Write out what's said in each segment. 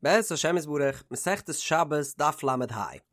בעזרת השם יתברך, מסכת שבת דף ל"ה,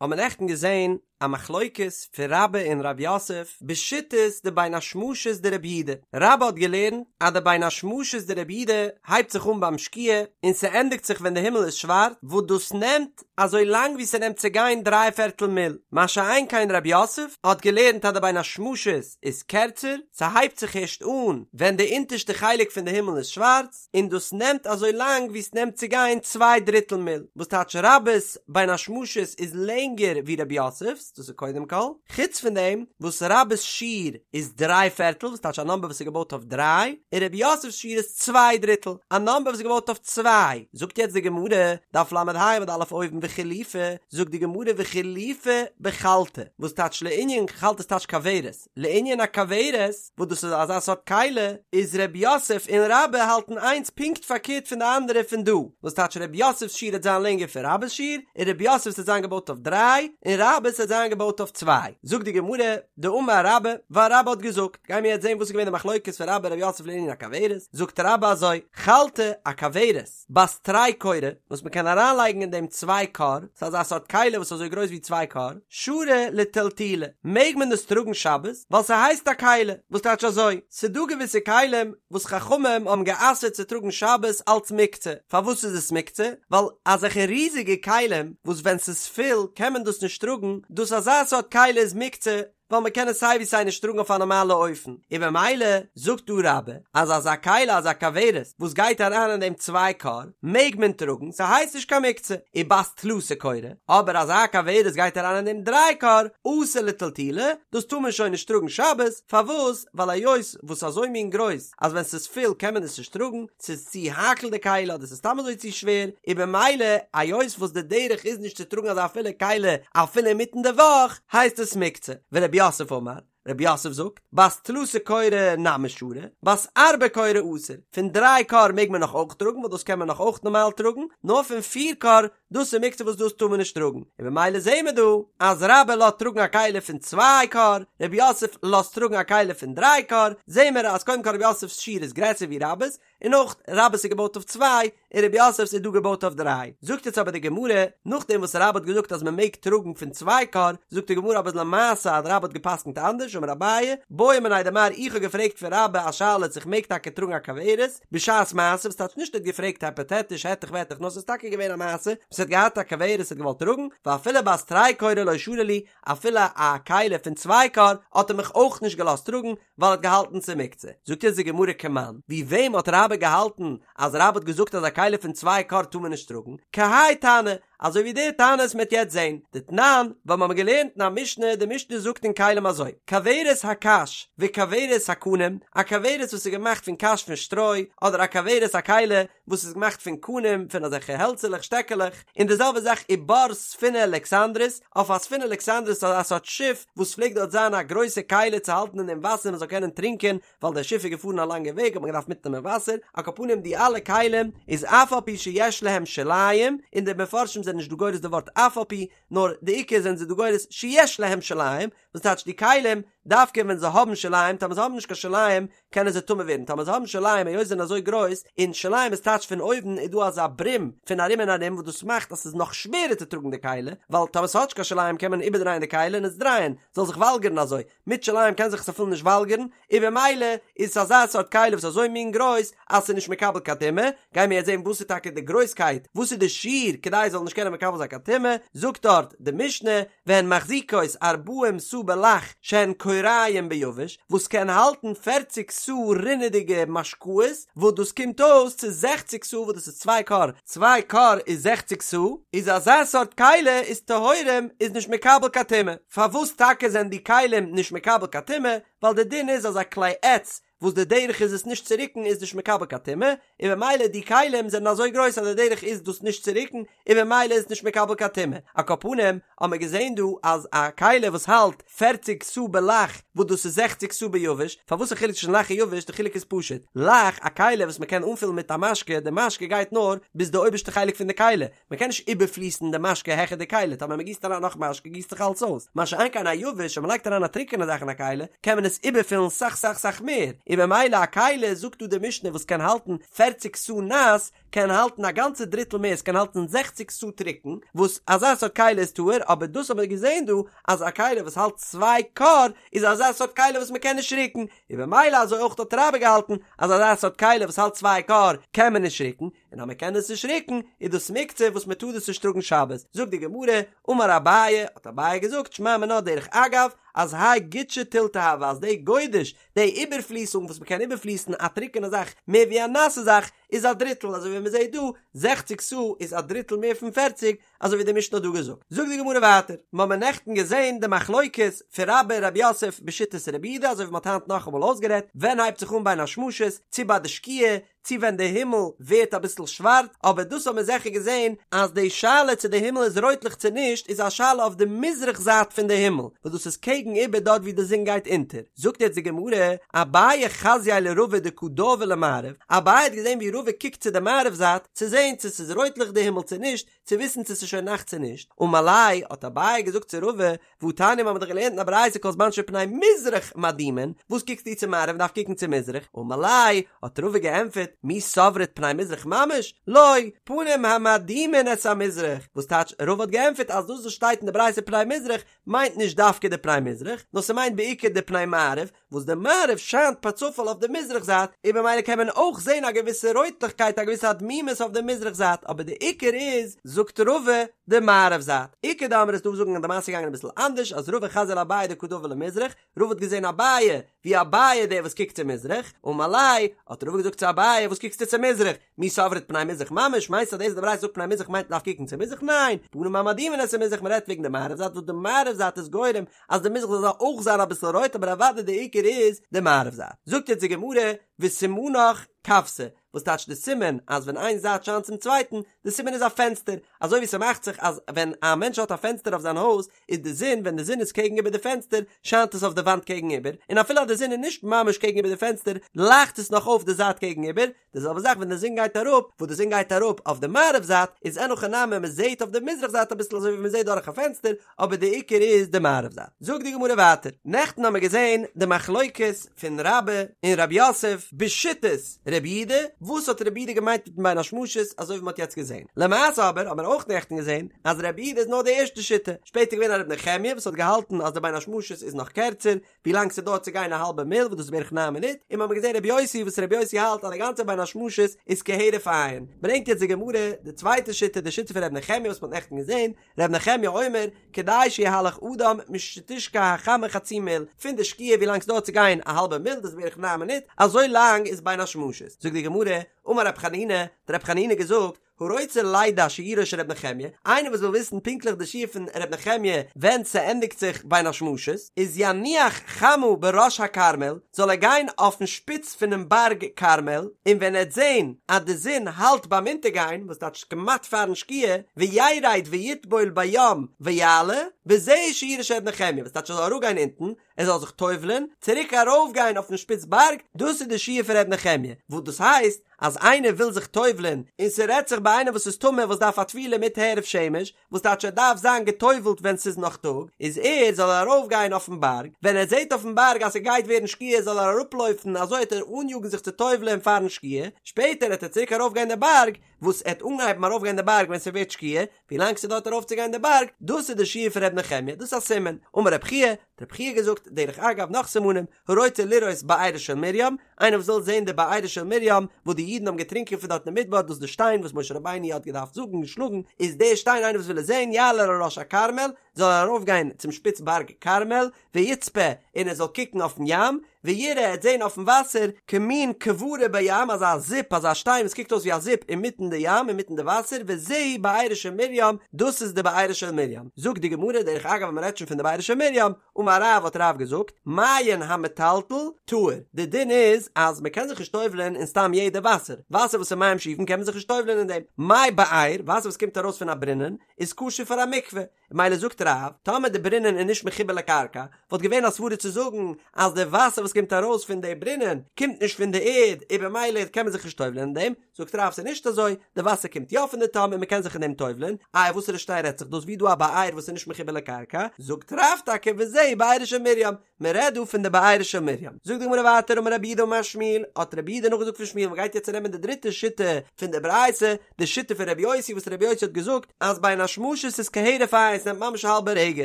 האבן מיר נעכטן געזען א מחלוקת פון רבה און רב יוסף בשיטת די בין השמשות דרבי יהודה, רבה האט געלערנט אז די בין השמשות דרבי יהודה הייבט זיך אן ביים שקיעה און ס'ענדיגט זיך ווען די הימל איז שווארץ, וואס דאס נעמט אזוי לאנג ווי ס'נעמט צו גיין דריי פערטל מיל, מה שאין כן רב יוסף האט געלערנט אז די בין השמשות איז קערצער, ס'הייבט זיך ערשט אן ווען די אונטערשטע חלק פון די הימל איז שווארץ, און דאס נעמט אזוי לאנג ווי ס'נעמט צו גיין צוויי דריטל מיל, וואס טייטש רבה'ס בין השמשות איז לענגער ווי רב יוסף'ס, דאס איז קודם כל, חוץ פון דעם וואס רבה'ס שיעור איז דריי פערטל, וואס טייטש א נאמבער וואס איז געבויט אויף דריי, און רב יוסף'ס שיעור איז צוויי דריטל, א נאמבער וואס איז געבויט אויף צוויי. זאגט יעצט די גמרא, דף ל"ה עמוד א' אויבן וחילופי, זאגט די גמרא וחילופי בחלתא, וואס טייטש לענין חלתא איז טייטש כוורת, לענין א כוורת, וואס דאס איז אזא סארט כלי, איז ר' יוסף און רבה האלטן איינס פונקט פארקערט פון די אנדערע פון דא, וואס טייטש ר' יוסף'ס שיעור וועט זיין לענגער פון רבה'ס שיעור, און ר' יוסף'ס וועט זיין געבויט אויף דריי, און רבה'ס וועט זיין געבויט אויף צוויי. זאגט די גמרא, דאמר רבה, ווייל רבה האט געזאגט, גיימיר יעצט זען וואס איז געווען די מחלוקת פון רבה און ר' יוסף לענין א כוורת, זאגט רבה אזוי, חלתא, א כוורת, בת תרי כורי, וואס מען קען אריינלייגן אין דעם צוויי כור, ס'איז אזא סארט כלי וואס איז אזוי גרויס ווי צוויי כור, שרי לטלטולי, מעג מען דאס טראגן שבת, ווייל ס'הייסט א כלי, וואס טייטש אזוי, ס'דא געוויסע כלים וואס חכמים האבן גע'אסר'ט צו טראגן שבת אלץ מוקצה, פארוואס איז עס מוקצה? ווייל אזעלכע ריזיגע כלים וואס ווען ס'איז פול קען מען דאס נישט טראגן, דאס אזא סארט כלי איז מוקצה, ווייל מען קען עס סיי ווי סיי נישט טראגן אויף א נארמאלע אופן, און במילא זאגט דא רבה אז אזא כלי אזא כוורת וואס גייט אריין אין דעם צוויי כור מעג מען טראגן ס'הייסט נישט קיין מוקצה, ובת תלתא כורי, אבער אזא כוורת גייט אריין אין דעם דריי כור אסור לטלטולי, דאס טאר מען שוין נישט טראגן שבת, פארוואס? ווייל היות וואס אזוי מין גרויס אז ווען ס'איז פול קען מען עס נישט טראגן, ס'איז צו האקל די כלי אדער ס'איז סתם אזוי צו שווער, און במילא היות וואס די דרך איז נישט צו טראגן אזא פולע כלי אפילו אינמיטן די וואך, הייסט עס מוקצה. ורב יוסף אמר, רב יוסף זאגט, בת תלתא כורי נמי שרי, בת ארבעה כורי אסור, פון דריי כור מעג מען נאך אויך טראגן ווייל דאס קען מען נאך אויך נארמאל טראגן, נאר פון פיר כור דאס איז מוקצה וואס דאס טאר מען נישט טראגן, און במילא זעהן מיר דא אז רבה לאזט טראגן א כלי פון צוויי כור, רב יוסף לאזט טראגן א כלי פון דריי כור, זעהן מיר אז קודם כל רב יוסף'ס שיעור איז גרעסער ווי רבה'ס, און אויך רבה'ס איז געבויט אויף צוויי, און רב יוסף'ס איז דא געבויט אויף דריי. זאגט יעצט אבער די גמרא, נאכדעם וואס רבה האט געזאגט אז מען מעג טראגן פון צוויי כור, זאגט די גמרא אבער למעשה אז רבה האט גע'פסק'נט אנדערש, אמר אביי, בעא מיניה דמר איך האב געפרעגט פון רבה א שאלה צו איך מעג טאקע טראגן א כוורת, בשעת מעשה, וואס טייטש נישט ער האט געפרעגט הייפאטעטיש העטעך וועטעך נאר ס'איז טאקע געווען א מעשה וואס ער האט געהאט א כוורת ער האט געוואלט טראגן, ואפילו בת תרי כורי לא שרא לי, אפילו א כלי פון צוויי כור האט ער מיך אויך נישט געלאזט טראגן ווייל ער האט געהאלטן ס'איז מוקצה. זאגט אונז די גמרא כמאן, ווי וועם האט רבה געהאלטן אז רבה האט געזאגט אז א כלי פון צוויי כור טאר מען נישט טראגן? כהאי תנא, אזוי ווי די תנא וואס מ'עט יעצט זעהן, דתנן, ווייל מ'האמיר געלערנט אין א משנה, די משנה זאגט אין כלים אזוי, כוורת הקש וכוורת הקנים, א כוורת וואס איז געמאכט פון קש פון שטרוי, אדער א כוורת א כלי וואס איז געמאכט פון קנים פון אזעלכע העלצערלעך שטעקעלעך, און די זעלבע זאך ובר ספינה אלכסנדרית, אויף א ספינה אלכסנדרית אזא סארט שיף וואס פלעגט דארט זיין א גרויסע כלי צו האלטן אין דעם וואסער מען זאל קענען טרינקען, ווייל דער שיף איז געפארן א לאנגע וועג האט מען געדארפט מיטנעמען וואסער, על כל פנים די אלע כלים איז אף על פי שיש להם שוליים, און די מפרשים זענען נישט דא גורס די ווארט אף על פי, נאר די עיקר זענען זיי דא גורס שיש להם שוליים, וואס טייטש די כלים, דווקא ווען זיי האבן שוליים, טאמער זיי האבן נישט קיין שוליים קענען זיי טמא ווערן, טאמער זיי האבן שוליים היות זיי זענען אזוי גרויס, און שוליים איז טייטש פון אויבן איז דא אזא ברים פון ארום און ארום וואס דאס מאכט אז ס'איז נאך שווערער צו טראגן די כלי, ווייל טאמער ס'האט נישט קיין שוליים קען מען איבערדרייען די כלי און עס דרייען, זאל זיך וואלגערן אזוי, מיט שוליים קען זיך עס אפילו נישט וואלגערן, און במילא איז עס אזא סארט כלי וואס איז אזוי מין גרויס אז ס'איז נישט מקבל קיין טומאה, גייען מיר יעצט זען וואס איז טאקע די גרויסקייט, וואס איז די שיעור כדי עס זאל נישט קענען מקבל זיין קיין טומאה, זאגט דארט די משנה, והן מחזיקות ארבעים סאה בלח שהן כוריים ביבש, וואס קען האלטן פערציג סאה רינעדיגע משקאות, וואס דאס קומט אויס צו זעכציג סאה וואס דאס איז צוויי כור, צוויי כור איז זעכציג סאה, איז אזא סארט כלי איז טהורים איז נישט מקבל קיין טומאה. פארוואס טאקע זענען די כלים נישט מקבל קיין טומאה? ווייל די דין איז אז א כלי עץ וואס די דרך איז עס נישט צו רוקן איז נישט מקבל קיין טומאה, און במילא די כלים זענען אזוי גרויס אז די דרך איז דאס נישט צו רוקן און במילא איז עס נישט מקבל קיין טומאה. על כל פנים האבן מיר געזען דא אז א כלי וואס האלט פערציג סאה בלח וואס דאס איז זעכציג סאה ביבש, פארוואס א חילוק צווישן לח און יבש? די חילוק איז פשוט, לח א כלי וואס מען קען אנפילן מיט א משקה, די משקה גייט נאר ביז די אויבערשטע חלק פון די כלי, מען קען נישט איבערפליסן די משקה העכער די כלי, טאמער מען גיסט אריין נאך משקה גיסט זיך אלץ אויס, מה שאין כן א יבש, ווען מען לייגט אריין א טרוקענע זאך אין א כלי, קען מען עס איבערפילן סאך סאך סאך מער, און במילא א כלי זאגט דא די משנה וואס קען האלטן פערציג סאה נאס, קען האלטן א גאנצע דריטל מער, עס קען האלטן זעכציג סאה טרוקן, וואס אזא סארט כלי איז טהור, אבער דאס האבן מיר געזען דא אז א כלי וואס האלט צוויי כור איז אזא סארט כלי וואס מען קען נישט רוקן, און במילא אזוי אויך האט רבה געהאלטן אז אזא סארט כלי וואס האלט צוויי כור קען מען נישט רוקן, און אז מען קען עס נישט רוקן איז דאס מוקצה וואס מען טאר דאס נישט טראגן שבת, זאגט די גמרא, אמר אביי, האט אביי געזאגט, שמע מינה דרך אגב, אז האי גודשא תילתא הוי אז די גודש, די איבערפליסונג וואס מען קען איבערפליסן א טרוקענע זאך מער ווי א נאסע זאך, איז א דריטל, אזוי ווי מען זעט דא, זעכציג סאה איז א דריטל מער פון פערציג, אזוי ווי די משנה האט דא געזאגט. זאגט די גמרא ווייטער, מיר האבן נעכטן געזען די מחלוקת פון רבה און רב יוסף בשיטת רבי יהודה, אזוי ווי מען האט היינט נאכאמאל אויסגערעדט, ווען הייבט זיך אן בין השמשות, צו ביי די שקיעה, צו ווען די הימל ווערט אביסל שווארץ, אבער דאס האבן מיר זיכער געזען אז די שאלה צו די הימל איז רויטליך צו נישט איז א שאלה אויף די מזרח זייט פון די הימל, וואס דאס איז קעגן איבער דארט ווי די זון גייט אונטער. זאגט יעצט די גמרא, אביי חזייה לרבא דקא דאוי למערב, אביי האט געזען ווי רבא קוקט צו די מערב זייט צו זען צו ס'איז רויטליך די הימל צו נישט, צו וויסן צו ס'איז שוין נאכט צו נישט, אמר ליה, האט אביי געזאגט צו רבא, והתניא מ'האמיר דאך געלערנט אין א ברייתא כל זמן שפני מזרח מאדימין, וואס קוקסטו צו מערב מ'דארף קוקן צו מזרח, אמר ליה, האט רבא געענטפערט, מי סברת פני מזרח ממש? לא, פנים המאדימין את המזרח, וואס טייטש רבא האט געענטפערט אז דאס וואס שטייט אין די ברייתא פני מזרח מיינט נישט דווקא די פני מזרח, נאר ס'מיינט בעיקר די פני מערב, וואס די מערב שיינט פארצופאל אויף די מזרח זייט, און במילא קען מען אויך זען א געוויסע רויטליכקייט א געוויסע אדמימות אויף די מזרח זייט, אבער די עיקר איז, זאגט רבא, די מערב זייט. איכא דאמרי ס'איז דא וואס זאגן אז די מעשה איז געגאנגען אביסל אנדערש, אז רבא חזייה לאביי דקא דאוי למזרח, רבא האט געזען אביי, ווי אביי דער וואס קוקט צו מזרח, אמר ליה, האט רבא געזאגט צו אביי, וואס קוקסטו צו מזרח? מי סברת פני מזרח ממש, מיינסט אז דאס וואס די ברייתא זאגט פני מזרח מיינט מ'דארף קוקן צו מזרח? ניין, פנים המאדימין את המזרח מ'רעדט וועגן די מערב זייט וואס די מערב זייט איז גורם אז די מזרח זאל אויך זיין אביסל רויט אבער אוודאי די עיקר איז די מערב זייט. זאגט יעצט די גמרא וסימנך כוותא, וואס טייטש די סימן אז ווען איין זייט שיינט צום צווייטן, די סימן איז א פענסטער, אזוי ווי ס'מאכט זיך אז ווען א מענטש האט א פענסטער אויף זיין הויז איז די זון ווען די זון איז קעגן איבער די פענסטער שיינט עס אויף די וואנט קעגן איבער, און אפילו אז די זון איז נישט ממש קעגן איבער די פענסטער לייכט עס נאך אויף די זייט קעגן איבער, די זעלבע זאך ווען די זון גייט אראפ, וואס די זון גייט אראפ אויף די מערב זייט, איז אין הכי נמי מען זעט אויף די מזרח זייט אביסל אזוי ווי מען זעט דורך א פענסטער, אבער די עיקר איז די מערב זייט. זאגט די גמרא ווייטער, נעכטן האמיר געזען די מחלוקת פון רבה און רב יוסף בשיטת רבי יהודה, וואס האט רבי יהודה געמיינט מיטן בין השמשות אזוי ווי מען האט יעצט געזען, למעשה אבער האט מען אויך נעכטן געזען אז רבי יהודה איז נאר די ערשטע שיטה, שפעטער געווען א רבי נחמיה וואס האט געהאלטן אז די בין השמשות איז נאך קערצער, ווי לאנג ס'דויערט צו גיין א האלבע מיל וואס דאס איז בערך ניין מינוט, און מ'האמיר געזען רבי יוסי וואס רבי יוסי האלט אז די גאנצע בין השמשות איז כהרף עין. ברענגט יעצט די גמרא די צווייטע שיטה די שיטה פון רבי נחמיה וואס מ'האט נעכטן געזען, רבי נחמיה אומר, כדי שיהלך אדם משתשקע החמה חצי מיל, פון די שקיעה ווי לאנג ס'דויערט צו גיין א האלבע מיל דאס איז בערך ניין מינוט, אזוי לאנג איז בין השמשות. זאגט די גמרא, אמר רב חנינא, האט רב חנינא געזאגט, הרוצה לידע שיעורו של ר' נחמיה, איינער וואס וויל וויסן פונקטליך די שיעור פון ר' נחמיה ווען ס'ענדיגט זיך בין השמשות, איז יניח חמה בראש הכרמל, זאל ער גיין אויפן שפיץ פונעם בארג כרמל, און ווען ער וועט זען אז די זון האלט ביים אונטערגיין, וואס טייטש כמעט פארן שקיעה, וירד ויטבול בים ויעלה, וזה שיעורו של ר' נחמיה, וואס טייטש ער זאל אראפגיין אונטן, ער זאל זיך טובל'ען, צוריק ארויפגיין אויפן שפיץ בארג, דאס איז די שיעור פון ר' נחמיה, וואס דאס הייסט, אז איינער וויל זיך טובל'ען, און ס'רעדט זיך ביי איינער וואס איז טמא וואס דארף א טבילה מיט הערב שמש, וואס טייטש ער דארף זיין געטובל'ט ווען ס'איז נאך טאג, איז ער זאל ער ארויפגיין אויפן בארג, ווען ער זעט אויפן בארג אז ס'גייט ווערן שקיעה זאל ער אראפלויפן אזוי העט ער אניאגן זיך צו טובל'ען פארן שקיעה, שפעטער העט ער צוריק ארויפגיין די בארג, וואס ער העט אנהייבן ארויפגיין די בארג ווען ס'ווערט שקיעה, ווילאנג ס'דויערט ארויפצוגיין די בארג, דאס איז די שיעור פון ר' נחמיה, דאס איז א סימן. אמר רב חייא, האט רב חייא געזאגט, דרך אגב נאך סימנים, הרוצה לראות בארה של מרים, איינער וואס וויל זען די בארה של מרים, וואס די אידן האבן געטרינקען פון דארט אין מדבר, דאס איז די שטיין וואס משה רבינו האט געדארפט זאגן און שלאגן, איז די שטיין איינער וואס וויל עס זען, יעלה על ראש הכרמל, זאל ער ארויפגיין צום שפיץ בארג כרמל, ויצפה, און ער זאל קוקן אויפן ים, ויראה, ער וועט זען אויפן וואסער, כמין כברה בים, אזא זיפ, אזא שטיין וואס קוקט אויס ווי א זיפ אינמיטן די ים, אינמיטן די וואסער, וזהו בארה של מרים, דאס איז די בארה של מרים. זאגט די גמרא, דרך אגב ווען מען רעדט שוין פון די בארה של מרים, אמר רב האט רב געזאגט, מעיין המטלטל, טהור, די דין איז אז מען קען זיך נישט טובל'ען אין סתם יעדע וואסער, וואסער וואס איז מים שאובין קען מען זיך נישט טובל'ען אין דעם, מי באר, וואסער וואס קומט ארויס פון א ברונען, איז כשר פאר א מקווה, מילא זאגט רב, טאמער די ברונען איז נישט מחובר לקרקע, וואלט געווען א סברה צו זאגן אז די וואסער וואס קומט ארויס פון די ברונען קומט נישט פון די ערד און במילא קען מען זיך נישט טובל'ען אין דעם, זאגט רב ס'איז נישט אזוי, די וואסער קומט יא פון די תהום און מ'קען זיך אין דעם טובל'ען, איי וואסערע שטיין רעדט זיך דאס ווי דא א באר וואס איז נישט מחובר לקרקע, זאגט רב טאקע וזהו בארה של מרים. מען רעדט דא פון די בארה של מרים. זאגט די גמרא ווייטער אמר רב יהודה אמר שמואל, האט רב יהודה נאכגעזאגט פון שמואל, מען גייט יעצט נעמען די דריטע שיטה פון די ברייתא, די שיטה פון רבי יוסי וואס רבי יוסי האט געזאגט אז בין השמשות איז כהרף עין, ס'נעמט ממש א האלבע רגע,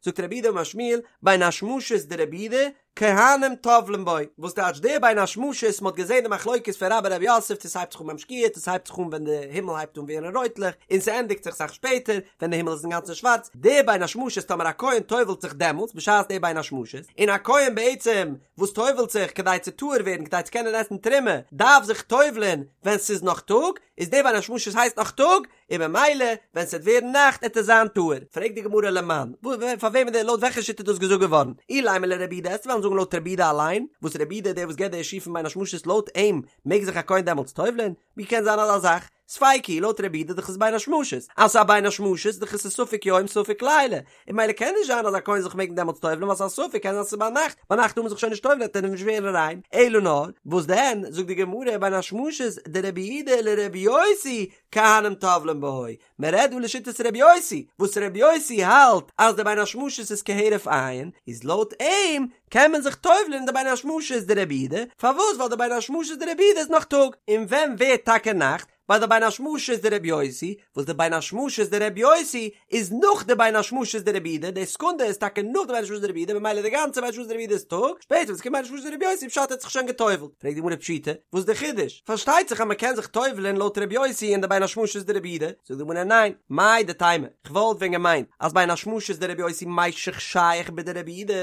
זאגט רב יהודה אמר שמואל, בין השמשות דרבי יהודה, כהנים טובלין בו, וואס טייטש די בין השמשות, מ'האט געזען די מחלוקת פון רבה רב יוסף צו ס'הייבט זיך אן ביים שקיעה צו ס'הייבט זיך אן ווען די הימל הייבט אן ווערן רויטלעך און ס'ענדיגט זיך סאך שפעטער ווען די הימל איז אינגאנצן שווארץ, די בין השמשות טאמער א כהן טובל'ט זיך דעמאלטס בשעת די בין השמשות, און א כהן בעצם וואס טובל'ט זיך כדי צו טהור ווערן כדי צו קענען עסן תרומה דארף זיך טובל'ען ווען ס'איז נאך טאג, איז די בין השמשות הייסט נאך טאג, און במילא ווען ס'וועט ווערן נאכט עט ער זיין טהור. פרעגט די גמרא למאן, פאר וועמען די לויט וועלכע שיטה איז דאס געזאגט געווארן? אילימא לרבי יהודה עסט וועלן זאגן לויט רבי יהודה אליין, וואס רבי יהודה איז דער וואס געבט די שיעור פון בין השמשות לויט אים מעג זיך א כהן דעמאלטס טובל'ען? ווי קען זיין אזא זאך? ספיקא היא לויט רבי יהודה דאך איז בין השמשות, אז ס'איז א בין השמשות דאך איז עס ספק יום ספק לילה, און במילא קען נישט זיין אז א כהן זיך מעגן דעמאלטס טובל'ן ווייל ס'איז א ספק קען זיין ס'איז ביינאכט, ביינאכט טאר מען זיך שוין נישט טובל'ן וועט ער נישט ווערן ריין, אלא נאר וואס דען זאגט די גמרא בין השמשות דרבי יהודה לרבי יוסי כהנים טובלין בו, מען רעדט דא לשיטת רבי יוסי, וואס רבי יוסי האלט אז די בין השמשות איז כהרף עין, איז לויט אים קען מען זיך טובל'ן אין די בין השמשות דרבי יהודה, פארוואס ווייל די בין השמשות דרבי יהודה איז נאך טאג, און ווען ווערט טאקע נאכט? ביי די בין השמשות דרבי יוסי, וואס די בין השמשות דרבי יוסי איז נאך די בין השמשות דרבי יהודה, די סעקונדע איז טאקע נאך די בין השמשות דרבי יהודה, ממילא די גאנצע בין השמשות דרבי יהודה איז טאג, שפעטער ווען ס'קומט בין השמשות דרבי יוסי פשט ער האט זיך שוין גע'טובל'ט, פרעגט די גמרא פשיטא, וואס איז די חידוש? פארשטייט זיך אז מ'קען זיך טובל'ען לויט רבי יוסי אין די בין השמשות דרבי יהודה, זאגט די גמרא ניין, מהו דתימא, כ'וואלט ווען געמיינט אז בין השמשות דרבי יוסי מישך שייך בדרבי יהודה,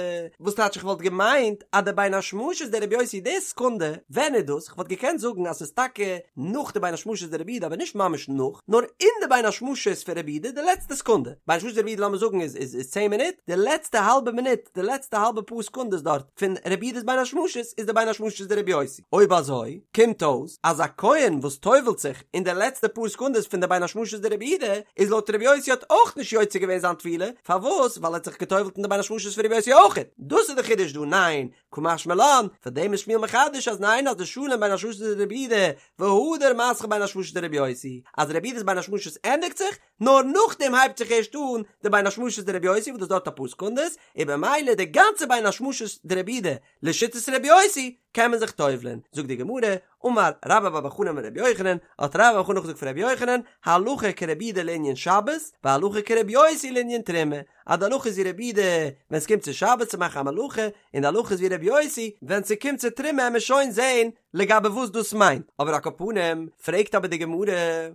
וואס טייטש איך וואלט געמיינט אז די בין השמשות דרבי יוסי די סעקונדע, ווען איז דאס? כ'וואלט געקענט זאגן אז ס'איז טאקע נאך די בין השמשות דרבי יהודה אבער נישט ממש נאך, נאר אין די בין השמשות פון רבי יהודה די לעצטע סעקונדע, בין השמשות דרבי יהודה לאמיר זאגן איז איז איז צען מינוט, די לעצטע האלבע מינוט, די לעצטע האלבע פאר סעקונדעס דארט פון רבי יהודה'ס בין השמשות איז די בין השמשות דרבי יוסי. אויב אזוי קומט אויס אז א כהן וואס טובל'ט זיך אין די לעצטע פאר סעקונדעס פון די בין השמשות דרבי יהודה איז לויט רבי יוסי האט אויך נישט יוצא געווען זיין טבילה, פארוואס? ווייל ער האט זיך געטובל'ט אין די בין השמשות פון רבי יוסי אויכעט. דאס איז די חידוש דא, ניין? קא משמע לן, פאר דעם איז שמואל מחדש אז ניין אז דשלים בין השמשות דרבי יהודה והדר מתחיל בין השמשות דרבי יוסי, אז רבי יהודה'ס בין השמשות ענדיגט זיך, נאר נאכדעם הייבט זיך ערשט אן די בין השמשות דרבי יוסי וואס דאס דויערט אפאר סעקונדעס, און במילא די גאנצע בין השמשות דרבי יהודה לשיטת רבי יוסי קען מען זיך טובל'ען, זאגט די גמרא, אמר רבה בר בר חנה אמר רבי יוחנן, האט רבה בר בר חנה נאכגעזאגט פון רבי יוחנן, הלכה כרבי יהודה לענין שבת, והלכה כרבי יוסי לענין תרומה, אז די הלכה איז ווי רבי יהודה ווען ס'קומט צו שבת צו מאכן א מלאכה, און די הלכה איז ווי רבי יוסי ווען ס'קומט צו תרומה עמיר שוין זעהן לגבי וואס דאס מיינט, אבער על כל פנים, פרעגט אבער די גמרא,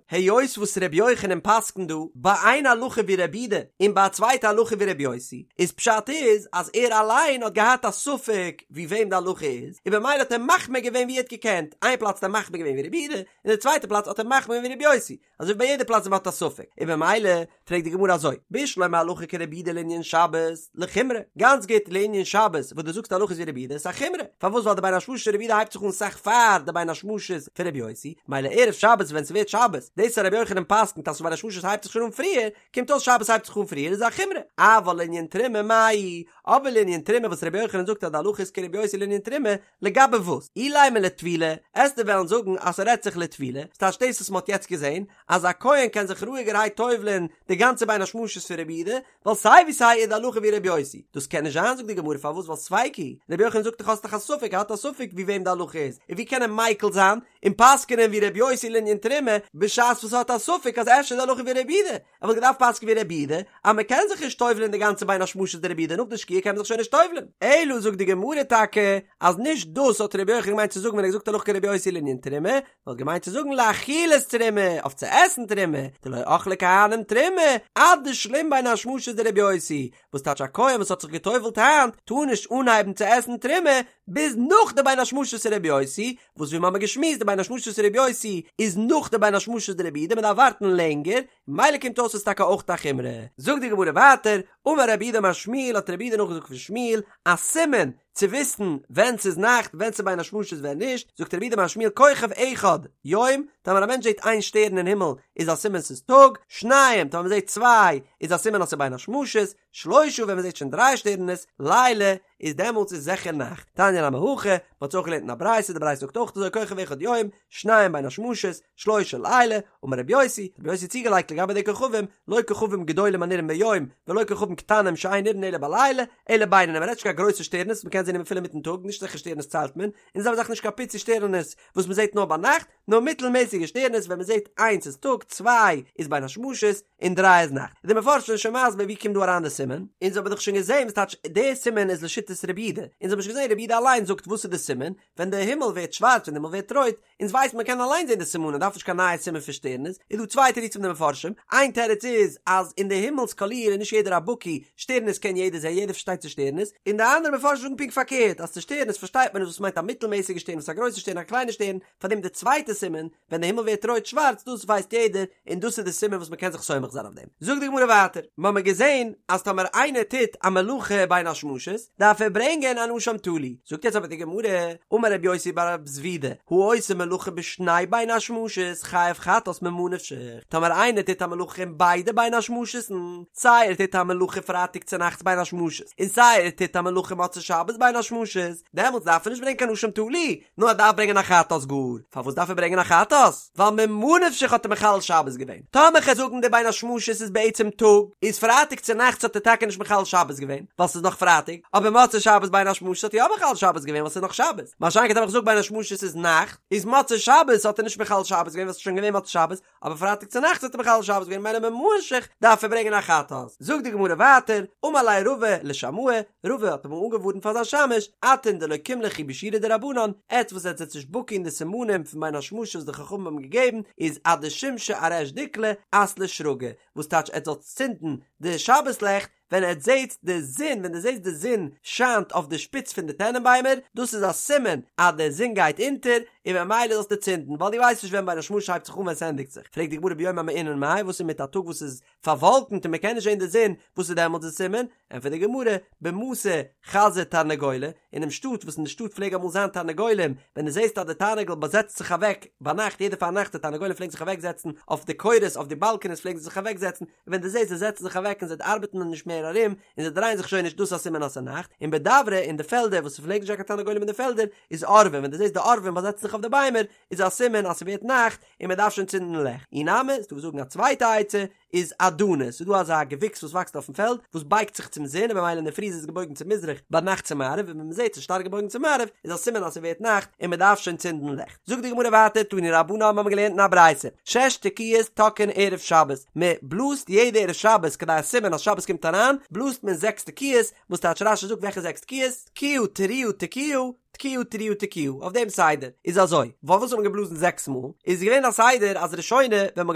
היות וואס רבי יוחנן פסק'נט דא ביי איין הלכה ווי רבי יהודה און ביי א צווייטע הלכה ווי רבי יוסי, איז פשט איז אז ער אליין האט געהאט א ספק ווי וועם די הלכה איז, און במילא האט ער מחמיר געווען ווי ער האט געקענט, איין פלאץ האט ער מחמיר געווען ווי רבי יהודה, און די צווייטע פלאץ האט ער מחמיר געווען ווי רבי יוסי, אזוי ווי ביי יעדע פלאץ ווי מ'האט א ספק, און במילא פרעגט די גמרא אזוי, בשלמא הלכה כרבי יהודה לענין שבת, לחומרא, גאנץ גוט לענין שבת וואס דו זאגסט הלכה איז ווי רבי יהודה איז א חומרא, פארוואס ווייל די בין השמשות של רבי יהודה הייבט זיך אן סאך פאר די בין השמשות פון רבי יוסי, מילא ערב שבת ווען ס'ווערט שבת, דאס אז רבי יוחנן פסק'נט אז בין השמשות הייבט זיך שוין אן פריער, קומט אויס שבת הייבט זיך אן פריער איז א חומרא, אבל לענין תרומה מאי, אבער לענין תרומה וואס רבי יוחנן זאגט אז די הלכה איז כרבי יוסי לענין תרומה, לגבי וואס? אילימא לטבילה, עסטו וועלן זאגן אז ס'רעדט זיך לטבילה, ס'טייטש דאס וואס מ'האט יעצט געזען, אז א כהן קען זיך רואיגערהייט טובל'ען די גאנצע בין השמשות פון רבי יהודה, ווייל סיי ווי סיי איז די הלכה ווי רבי יוסי. דאס קען נישט זיין זאגט די גמרא פארוואס ווייל ספיקא היא, רבי יוחנן זאגט דאך האסט דאך א ספק ער האט א ספק ווי וועם די הלכה איז, און ווי קען ער מיקל זיין און פסק'נען ווי רבי יוסי לענין תרומה בשעת וואס ער האט א ספק אז אפשר איז די הלכה ווי רבי יהודה, ער וואלט געדארפט פסק'ן ווי רבי יהודה אז מען קען זיך נישט טובל'ען די גאנצע בין השמשות דרבי יהודה נאך די שקיעה קען מען זיך שוין נישט טובל'ען. אלא זאגט די גמרא טאקע אז נישט דאס האט רבי יוחנן געמיינט צו זאגן ווען ער האט געזאגט הלכה כרבי יוסי לענין תרומה, נאר האט געמיינט צו זאגן לאכילת תרומה, אויף צו עסן תרומה, דלא אכלי כהנים תרומה עד דשלים בין השמשות דרבי יוסי, וואס טייטש א כהן וואס האט זיך געטובל'ט היינט טאר נישט אנהייבן צו עסן תרומה ביז נאך די בין השמשות רבי יוסי, וואס ווי מ'האמער געשמועסט די בין השמשות רבי יוסי איז נאך די בין השמשות דרבי יהודה מ'דארף ווארטן לענגער, מילא קומט אויס ס'איז טאקע אויך א חומרא. זאגט די גמרא ווייטער, אמר רב יהודה אמר שמואל האט רב יהודה נאכגעזאגט פון שמואל א סימן צו וויסן ווען ס'איז נאכט ווען ס'איז בין השמשות ווען נישט, זאגט רב יהודה אמר שמואל כוכב אחד יום, טאמער א מענטש זעט איין שטערן אין הימל איז א סימן ס'איז טאג, שניים טאמער מ'זעט צוויי איז א סימן אז ס'איז בין השמשות, שלושה ווען מ'זעט שוין דריי שטערנעס, לילה, איז דעמאלטס איז זיכער נאכט. תניא נמי הכי, מ'האט עס אויך געלערנט אין א ברייתא, די ברייתא זאגט אויך אזוי כוכב אחד יום, שניים בין השמשות, שלושה לילה, אמר רבי יוסי, רבי יוסי האט צוגעלייגט לגבי די כוכבים, לא כוכבים גדולים הנראים ביום, ולא כוכבים קטנים שאין נראים אלא בלילה, אלא בינונים, מ'רעדט נישט קיין גרויסע שטערנעס וואס מ'קען. מ'קען זען אפילו אינמיטן טאג, נישט אזעלכע שטערנעס ציילט מען, און די זעלבע זאך נישט קיין פיצי שטערנעס וואס מ'זעט נאר ביינאכט, נאר מיטלמעסיגע שטערנעס ווען מ'זעט איינס איז טאג, צוויי איז בין השמשות, און דריי איז נאכט. די מפרשים זענען שוין מסביר ווי קומט דא אריין די סימן, אונז האבן דאך שוין געזען וואס טייטש די סימן איז לשיטת רבי יהודה, אונז האבן שוין געזען רבי יהודה אליין זאגט וואס איז די סימן, ווען די הימל ווערט שווארץ ווען די הימל ווערט רויט, אונז ווייסן מען קען אליין זען די סימנים דארף נישט קיין נייע סימן פון שטערנעס, איז דא צוויי תירוצים די מפרשים, איין תירוץ איז אז אין די הימל'ס קאליר איז נישט יעדער א בקי, שטערנעס קען יעדער זען יעדער פארשטייט צו שטערנעס, און די אנדערע מפרשים זאגן פונקט פארקערט אז צו שטערנעס פארשטייט מען נישט וואס מיינט א מיטלמעסיגע שטערן וואס איז א גרויסע שטערן א קליינע שטערן, פארדעם די צווייטע סימן ווען די הימל ווערט רויט שווארץ דאס ווייסט יעדער און דאס איז די סימן וואס מען קען זיך סומך זיין אויף דעם. זאגט די גמרא ווייטער, מ'האמיר געזען אז טאמער איינער טוט א מלאכה בין השמשות דארף ער ברענגען אן אשם תלוי, זאגט יעצט אבער די גמרא, אמר רבי יוסי בר רב זבידא, העושה מלאכה בשני בין השמשות חייב חטאת ממה נפשך, טאמער איינער טוט א מלאכה אין ביידע בין השמשות'ן, סיי ער טוט א מלאכה פרייטאג צונאכטס בין השמשות און סיי ער טוט א מלאכה מוצאי שבת בין השמשות, דעמאלטס דארף ער נישט ברענגען קיין אשם תלוי, נאר ער דארף ברענגען א חטאת גאר. פארוואס דארף ער ברענגען א חטאת? ווייל ממה נפשך האט ער מחלל שבת געווען. טאמער כ'על זאגן די בין השמשות איז בעצם טאג, איז פרייטאג צונאכטס האט ער טאקע נישט מחלל שבת געווען, ווייל ס'איז נאך פרייטאג, אבער מוצאי שבת בין השמשות האט ער יא מחלל שבת געווען ווייל ס'איז נאך שבת. מה שאין כן טאמער כ'זאג בין השמשות איז נאכט, איז מוצאי שבת האט ער נישט מחלל שבת געווען ווייל ס'איז שוין געווען מוצאי שבת, אבער פרייטאג צונאכטס האט ער מחלל שבת געווען ממילא ממה נפשך דארף ער ברענגען א חטאת. זאגט די גמרא ווייטער, אמר ליה רבא לשמעיה, רבא האט אמאל אנגעווארנט פאר זיין שמש, אתון דלא קים לכו בשיעורא דרבנן, עטץ וואס עטץ זענטס נישט בקי אין די סימנים פון בין השמשות וואס די חכמים האבן געגעבן, איז עד דשמשא אריש דיקלא אתלו שרגי, וואס טייטש עטץ זאלטס צינדן די שבת לעכט ווען עטץ זעטס די זון, ווען דו זעסט די זון שיינט אויף די שפיץ פון די טענענביימער, דאס איז א סימן אז די זון גייט אונטער, און ממילא זאלסטו צינדן, ווייל דו ווייסט נישט ווען בין השמשות הייבט זיך אן ווען ס'ענדיגט זיך. פרעגט די גמרא ביום המעונן מאי, וואס איז מיט א טאג וואס איז פארוואלקנט און מ'קען נישט זען די זון, וואס איז דעמאלטס די סימן? ענטפערט די גמרא, במתא חזו תרנגולי, אינעם שטאט וואס אין די שטאט פלעג אמאל זיין תרנגולים, ווען דו זעסט אז די תרנגול באזעצט זיך אוועק ביינאכט, יעדע פארנאכט די תרנגולים פלעגן זיך אוועקזעצן אויף די קורות אויף די באלקענעס פלעגן זיי זיך אוועקזעצן, ווען דו זעסט זיי זעצן זיך אוועק און זיי ארבעטן נישט מער ארום, און זיי דרייען זיך שוין נישט דאס איז א סימן אז ס'איז נאכט, און בדברא אין די פעלדער וואס ס'פלעגט נישט זיין קיין תרנגולים אין די פעלדער, איז עורבים, ווען דו זעסט די עורבים באזעצן זיך אויף די ביימער, איז א סימן אז ס'ווערט נאכט און מ'דארף שוין צינדן לעכט. אי נמי, ס'דא וואס זאגן א צווייטע עצה, איז אדני, ס'איז דא אזא געוויקס וואס וואקסט אויפן פעלד, וואס בייגט זיך צום זון און במילא אינדערפרי איז עס געבויגן צו מזרח, ביינאכט צו מערב, און ווען מ'זעט ס'איז שטארק געבויגן צו מערב, איז א סימן אז ס'ווערט נאכט און מ'דארף שוין צינדן לעכט. זאגט די גמרא ווייטער תנו רבנן האבן מיר געלערנט אין א ברייתא שש תקיעות תוקעין ערב שבת מען בלאזט יעדע ערב שבת כדי א סימן אז שבת קומט אריין בלאזט מען זעקס תקיעות וואס טייטש רש"י זאגט וועלכע זעקס תקיעות תקיעה תרועה תקיעה תקיעה תרועה תקיעה אויף דעם סדר איז אזוי פארוואס האט מען געבלאזן זעקס מאל איז געווען א סדר אז ראשונה ווען מען האט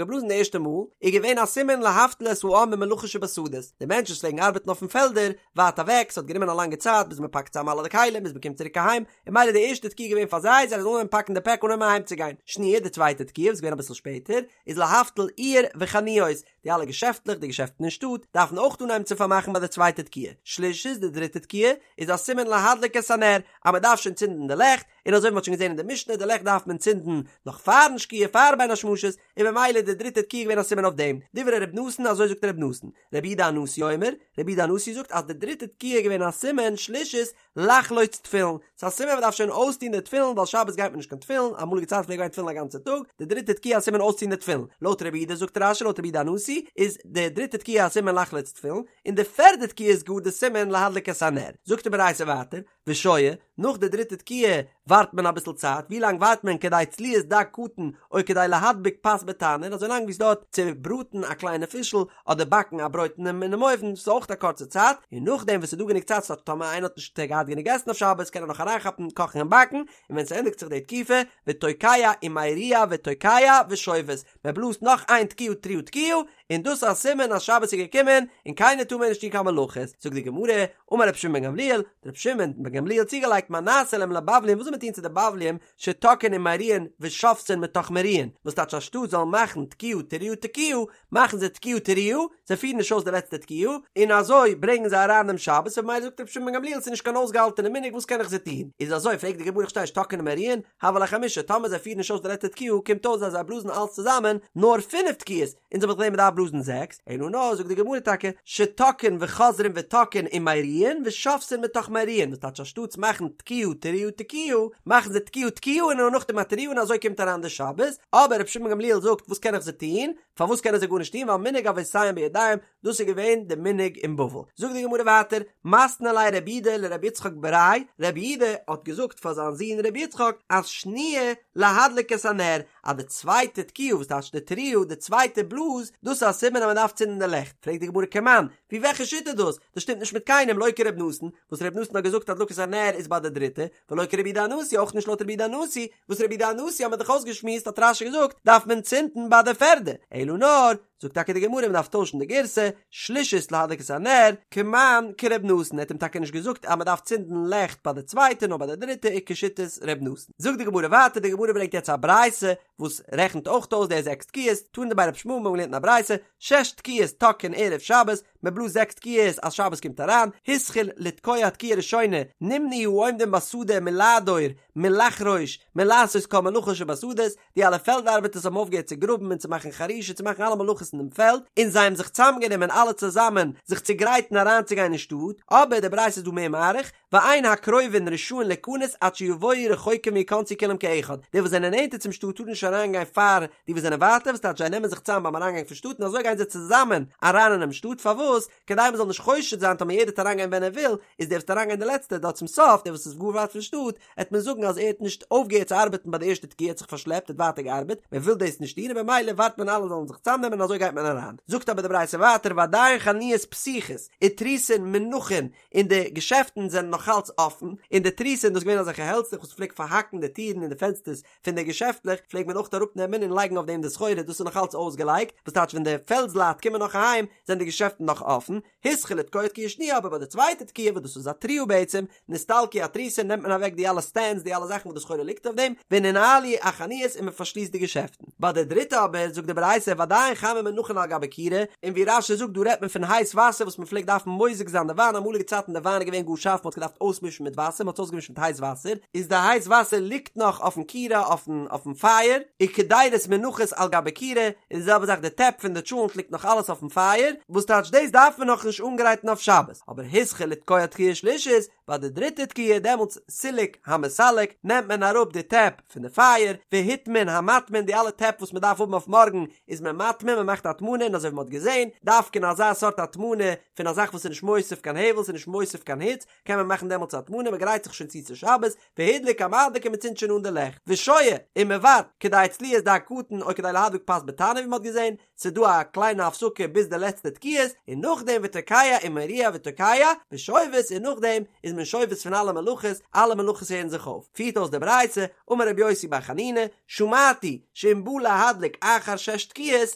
געבלאזן די ערשטע מאל איז געווען א סימן להבטיל את העם ממלאכה שבשדות די מענטשן וואס פלעגן ארבעטן אויפן פעלדער ווייט אוועק ס'האט גענומען א לאנגע צייט ביז מען פאקט צאם אלע די כלים ביז מען קומט צוריק אהיים און ממילא די ערשטע תקיעה געווען פאר זיי, זיי זאלן אנהויבן פאקן די פעק אנהויבן אהיים צו גיין. שניה, די צווייטע תקיעה וואס איז געווען אביסל שפעטער, איז להבטיל עיר וחנויות, די אלע געשעפטלעך, די געשעפטן אין שטאט, דארפן אויך אנהייבן צו פארמאכן ביי די צווייטע תקיעה. שלישית, די דריטע תקיעה, איז א סימן להדליק את הנר, אז מען דארף שוין צינדן די לעכט, און אזוי ווי מען האט שוין געזען אין די משנה, די לעכט דארף מען צינדן נאך פארן שקיעה, פאר בין השמשות, און ממילא איז די דריטע תקיעה געווען א סימן אויף דעם. דברי ר' נתן, אזוי זאגט ר' נתן. רבי יהודה הנשיא אומר, רבי יהודה הנשיא זאגט אז די דריטע תקיעה איז געווען א סימן, שלישית, לחלוץ תפילין, ס'איז א סימן מ'דארף שוין אויסטון די תפילין ווייל שבת גייט מען נישט קיין תפילין, אמאליגע צייטן פלעגט גיין תפילין א גאנצע טאג, די דריטע תקיעה א סימן אויסטון די תפילין, לויט רבי יהודה זאגט רש"י לויט רבי יהודה הנשיא איז די דריטע תקיעה א סימן לחלוץ תפילין, און די פערדע תקיעה איז גאר די סימן להדליק את הנר, זאגט די ברייתא ווייטער, ושוהה, נאך די דריטע תקיעה ווארט מען אביסל צייט, ווי לאנג ווארט מען כדי צליית דג קטן או כדי להדביק פת בתנור, אזוי לאנג ווי ס'דויערט צו בראטן א קליינע פישל אדער באקן א ברויט אינעם אויוון, ס'איז אויך א קורצע צייט, און נאכדעם וואס ס'איז דא גענוג צייט ס'טייטש טאמער איינער האט נישט געהאט גענוג עסן אויף שבת קען ער נאך אריינכאפן קאכן און באקן, און ווען ס'ענדיגט זיך די תקופה, ותוקע ומריע ותוקע ושובת, מען בלאזט נאך איין תקיעה תרועה תקיעה, און דאס איז א סימן אז שבת איז געקומען און קיינער טאר מער נישט טון קיין מלאכות, זאגט די גמרא, אמר רבי שמעון בן גמליאל, האט רבי שמעון בן גמליאל צוגעלייגט מה נעשה להם לבבלים וואס זאל מען טון צו די בבלים שתוקעין ומריעין ושובתין מתוך מריעין, וואס טייטש אנשטאט זאלן מאכן תקיעה תרועה תקיעה, מאכן זיי תקיעה תרועה, זיי פירן נישט אויס די לעצטע תקיעה, און אזוי ברענגען זיי אריין דעם שבת, און ממילא זאגט רבי שמעון בן גמליאל ס'איז נישט קיין אויסגעהאלטענע מנהג וואס קען איך זיי טון, איז אזוי פרעגט די גמרא איך פארשטיי נישט תוקעין ומריעין, הוו להו חמשה, טאמער זיי פירן נישט אויס די לעצטע תקיעה קומט אויס אז זיי בלאזן אלץ צוזאמען נאר פינף תקיעות, אונז האבן געזען מ'דארף בלאזן זעקס, אלא נאר זאגט די גמרא טאקע שתוקעין וחוזרין ותוקעין ומריעין ושובתין מתוך מריעין, וואס טייטש אנשטאטס מאכן תקיעה תרועה תקיעה. מאכן זיי תקיעה תקיעה און נאכדעם א תרועה און אזוי קומט אריין די שבת, אבער רבי שמעון גמליאל זאגט וואס קען איך זיי טון, פארוואס קענען זיי גארנישט טון ווייל מנהג אבותיהם בידיהם, דאס איז געווען די מנהג אין בבל. זאגט די גמרא ווייטער, מתני ליה רב יהודה לרבי יצחק בריה, רב יהודה האט געזאגט פאר זיין זון רבי יצחק אז שניה להדליק את הנר, אז די צווייטע תקיעה וואס טייטש די תרועה, די צווייטע בלאז, דאס איז א סימן אז מען דארף צינדן די לעכט, פרעגט די גמרא כמאן, ווי וועלכע שיטה איז דאס? דאס שטימט נישט מיט קיינעם, לא כרבי נתן, וואס רבי נתן האט געזאגט הדלקת הנר איז ביי די דריטע, ולא כרבי יהודה הנשיא, אויך נישט לויט רבי יהודה הנשיא, וואס רבי יהודה הנשיא האט מען דאך אויסגעשמועסט האט רש"י געזאגט דארף מען צינדן ביי די פערדע, אלא נאר, זאגט טאקע די גמרא מען דארף טוישן די גירסא, שלישית להדליק את הנר, כמאן כרבי נתן, ער האט אים טאקע נישט געזאגט אז מען דארף צינדן לעכט ביי די צווייטע נאר ביי די דריטע איז כשיטת רבי נתן. זאגט די גמרא ווייטער, די גמרא ברענגט יעצט א ברייתא וואס רעכנט אויך אויס די זעקס תקיעות, תנא דבי רבי ישמעאל מיר האבן געלערנט אין א ברייתא, שש תקיעות תוקעין ערב שבת, מען בלאזט זעקס תקיעות אז שבת קומט אריין, התחיל לתקוע תקיעה ראשונה, נמנעו העומדים בשדה מלעדור, מלחרוש, מלעשות כל מלאכה שבשדות, די אלע פעלד ארבעטערס האבן אויפגעהערט צו גראבן און צו מאכן חרישה צו מאכן אלע מלאכות אין דעם פעלד, און זיי האבן זיך צוזאמגענומען אלע צוזאמען זיך צו גרייטן אריינצוגיין אין שטאט, אבער די ברייתא איז דא מער מאריך, ואין הקרובין רשאין ליכנס עד שיבואו רחוקים ויכנסו כולם כאחד, די וואס זענען נענטער צום שטאט טארן נישט אריינגיין פאר די וואס זענען ווייטער, וואס טייטש זיי נעמען זיך צוזאם ביים אריינגאנג פון שטאט און אזוי גייען זיי צוזאמען אריין אינעם שטאט, פארוואס? כדי מען זאל נישט חושד זיין טאמער יעדער וועט אריינגיין ווען ער וויל, איז דער וואס וועט אריינגיין די לעצטע דארט צום סוף, דער וואס איז גאר ווייט פון שטאט, עט מען זאגן אז ער האט נישט אויפגעהערט צו ארבעטן ביי די ערשטע תקיעה, ער האט זיך פארשלעפט, ער האט ווייטער געארבעט, מען וויל דאס נישט טון און במילא ווארט מען אלע זאלן זיך צוזאמנעמען און אזוי גייט מען אריין. זאגט אבער די ברייתא ווייטער ועדיין חנויות פתוחות ותריסין מונחין, און די געשעפטן זענען נאך אלץ אפן, און די תריסין דאס איז געווען אזעלכע העלצלעך וואס פלעגט פארהאקן די טירן און די פענסטערס פון די געשעפטלעך, פלעגט מען אויך אראפ נעמען און לייגן אויף דעם די סחורה, דאס איז נאך אלץ אויסגעלייגט, וואס טייטש ווען די פעלדסלייט קומען נאך אהיים זענען די געשעפטן נאך אפן, התחיל לתקוע תקיעה שניה אבער ביי די צווייטע תקיעה וואס דאס איז א תרועה בעצם, נסתלקו התריסין נעמט מען אוועק די אלע סטענדס די אלע זאכן וואס די סחורה ליגט אויף דעם, וננעלו החנויות און מען פארשליסט די געשעפטן. ביי די דריטע אבער זאגט די ברייתא ועדיין חמין מונחין על גבי כירה, און ווי רש"י זאגט דא רעדט מען פון הייס וואסער וואס מען פלעגט דארפן מוזג זיין די וויין אמאליגע צייטן די וויין איז געווען גאר שארף מען האט געדארפט אויסמישן מיט וואסער מען האט עס אויסגעמישט מיט הייס וואסער איז די הייס וואסער ליגט נאך אויפן כירה אויפן אויפן פייער, וקדירות מונחות על גבי כירה, און די זעלבע זאך די טעפ פון די טשולנט ליגט נאך אלעס אויפן פייער, וואס טייטש דאס דארף מען נאכנישט אנגרייטן אויף שבת, אבער התחיל לתקוע תקיעה שלישית, ביי די דריטע תקיעה דעמאלטס סילק המסלק נעמט מען אראפ די טעפ פון די פייער, והטמין המטמין די אלע טעפ וואס מען דארף האבן אויף מארגן איז מען מטמין מען מאכט הטמנה און אזוי ווי מען האט געזען דווקא אין אזא סארט הטמנה פון א זאך וואס איז נישט מוסיף קיין הבל ס'איז נישט מוסיף קיין היץ קען מען מאכן דעמאלטס הטמנה מען גרייט זיך שוין צו צו שבת והדליק המדליק און מען צינדט שוין אן די לעכט ושוהה און מען ווארט כדי צליית דג קטן או כדי להדליק פת בתנור ווי מען האט געזען ס'איז דא א קליינע הפסקה ביז די לעצטע תקיעות, און נאכדעם ותוקע ומריע ותוקע, ושובת, און נאכדעם איז מען שובת פון אלע מלאכות, אלע מלאכות הערן זיך אויף. פירט אויס די ברייתא, אמר רבי יוסי בר חנינא, שמעתי, שאם בא להדליק אחר שש תקיעות,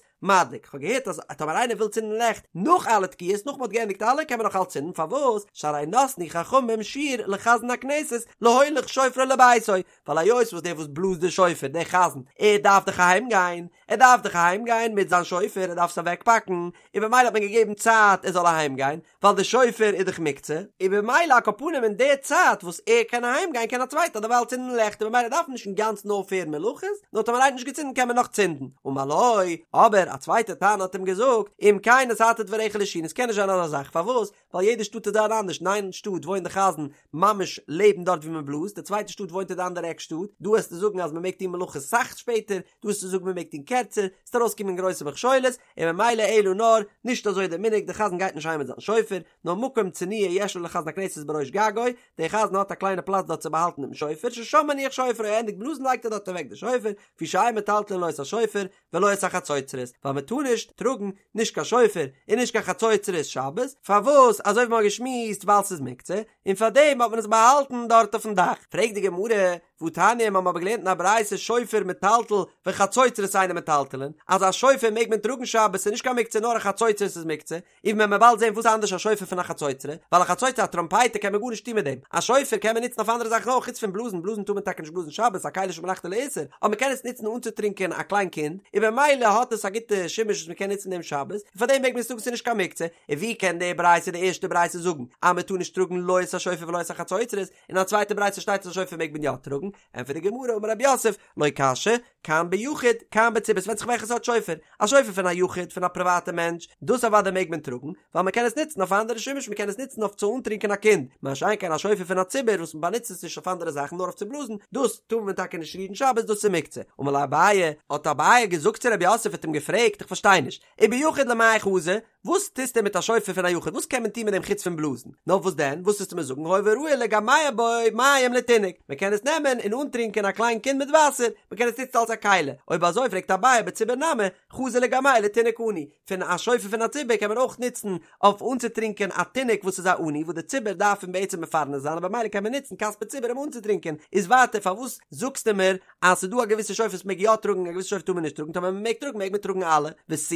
מדליק. כ'האב געהערט אז טאמער איינער וויל צינדן לעכט נאך אלע תקיעות, נאך מ'האט געענדיגט אלע, קען מען נאך אלץ צינדן, פארוואס? שהרי נתנו חכמים שיעור לחזן הכנסת להוליך שופרו לביתו, ווייל היות וואס דער וואס בלאזט די שופר, דער חזן, ער דארף דאך אהיים גיין, ער דארף דאך אהיים גיין מיט זיין שופר, ער דארף עס אוועק פאקן, און במילא האט מען געגעבן צייט ער זאל אהיים גיין, ווייל די שופר איז דאך מוקצה, און במילא על כל פנים אין די צייט וואס ער קען אהיים גיין קען א צווייטער דערווייל צינדן לעכט און במילא דארף מען נישט אינגאנצן אויפהערן מלאכות, נאר טאמער איינער האט נישט געצינדן קען מען נאך צינדן. אמר לו, אבער א צווייטער תנא האט אים געזאגט, אם כן נתת דבריך לשין, עס קען נישט זיין אזא זאך, פארוואס? ווייל יעדע שטאט איז דארט אנדערש, אין איין שטאט וואוינט די חזן ממש לעבן דארט ווי מען בלאזט, די צווייטע שטאט וואוינט אין די אנדערע עק שטאט, דא וועסטו זאגן אז מען מעג טון מלאכות סאך שפעטער, דא וועסטו זאגן מען מעג טון קערצער, ס'וועט ארויסקומען גרויסע מכשולות, און ממילא אלא נאר, נישט אזוי דער מנהג, דער חזן גייט נישט אהיים מיט זיין שופר, נאר מקום צנוע יש לו לחזן הכנסת בראש גגו, דער חזן האט א קליינע פלאץ דארט צו באהאלטן דעם שופר, ששם מניח שופרו, ער ענדיגט בלאזן לייגט ער דארט אוועק די שופר, לפי שאין מטלטלין לא את השופר, ולא את החצוצרות, ווייל מען טאר נישט טראגן נישט קיין שופר און נישט קיין חצוצרות שבת, פארוואס? אזוי ווי מען האט געשמועסט ווייל ס'איז מוקצה, און פארדעם האט מען עס באהאלטן דארט אויפן דאך. פרעגט די גמרא, והתניא, מיר האבן אבער געלערנט אין א ברייתא שופר מטלטל וחצוצרות אינן מטלטלין, אז א שופר מעג מען טראגן שבת ס'איז נישט קיין מוקצה נאר א חצוצרות איז מוקצה, און ווען מ'וועט באלד זען וואס איז אנדערש א שופר פון א חצוצרה, ווייל א חצוצרה א טראמפייטער קען מען גארנישט טון מיט דעם, א שופר קען מען נוצן אויף אנדערע זאכן אויך חוץ פון בלאזן, בלאזן טאר מען טאקע נישט בלאזן שבת, א כלי שמלאכתו לאיסור, אבער מ'קען עס נוצן אנצוטרינקען א קליין קינד, און במילא האט עס א גוטע שימוש וואס מ'קען נוצן דעם שבת, און פאר דעם מעג מען עס טראגן ס'איז נישט קיין מוקצה, און ווי קען די ברייתא די ערשטע ברייתא זאגן אז מ'טאר נישט טראגן לא את השופר ולא את החצוצרות, אין א צווייטע ברייתא שטייט אז א שופר מעג מען יא טראגן, ענטפערט די גמרא אמר רב יוסף, לא קשיא, כאן ביחיד, כאן בציבור, ס'ווענדט זיך וועלכע סארט שופר, א שופר פון א יחיד, פון א פריוואטע מענטש, דאס אוודאי מעג מען טראגן, ווייל מען קען עס נוצן אויף א אנדערע שימוש, מען קען עס נוצן אויף צו אנטרינקען א קינד, מה שאין כן א שופר פון א ציבור וואס מען באנוצט עס נישט אויף אנדערע זאכן נאר אויף צו בלאזן, דאס טאר מען טאקע נישט רירן שבת, דאס איז מוקצה. אמר ליה אביי, האט אביי געזאגט צו רב יוסף האט אים געפרעגט, איך פארשטיי נישט, וביחיד למאי חזי, וואס טוסטו מיט א שופר פון א יחיד, וואס קען מען טון מיט דעם חוץ פון בלאזן? נאר וואס דען, וואס וועסטו מיר זאגן, הואיל וראוי לגמע בו מים לתינוק, מען קען עס נעמען און אנטרינקען א קליין קינד מיט וואסער, מען קען עס נוצן אלס א כלי, אויב אזוי פרעגט אביי בציבור נמי, חזי לגמע לתינוק עני, פון א שופר פון א ציבור קען מען אויך נוצן אויף אנצוטרינקען א תינוק וואס איז א עני וואס די ציבור דארף אים בעצם מפרנס זיין און במילא קען מען נוצן כספי ציבור אים אנצוטרינקען, איז ווייטער פארוואס זאגסטו מיר אז ס'איז דא א געוויסע שופר וואס מ'מעג יא טראגן און א געוויסע שופר טאר מען נישט טראגן, טאמער מ'מעג טראגן מעג מען טראגן אלע, ותו,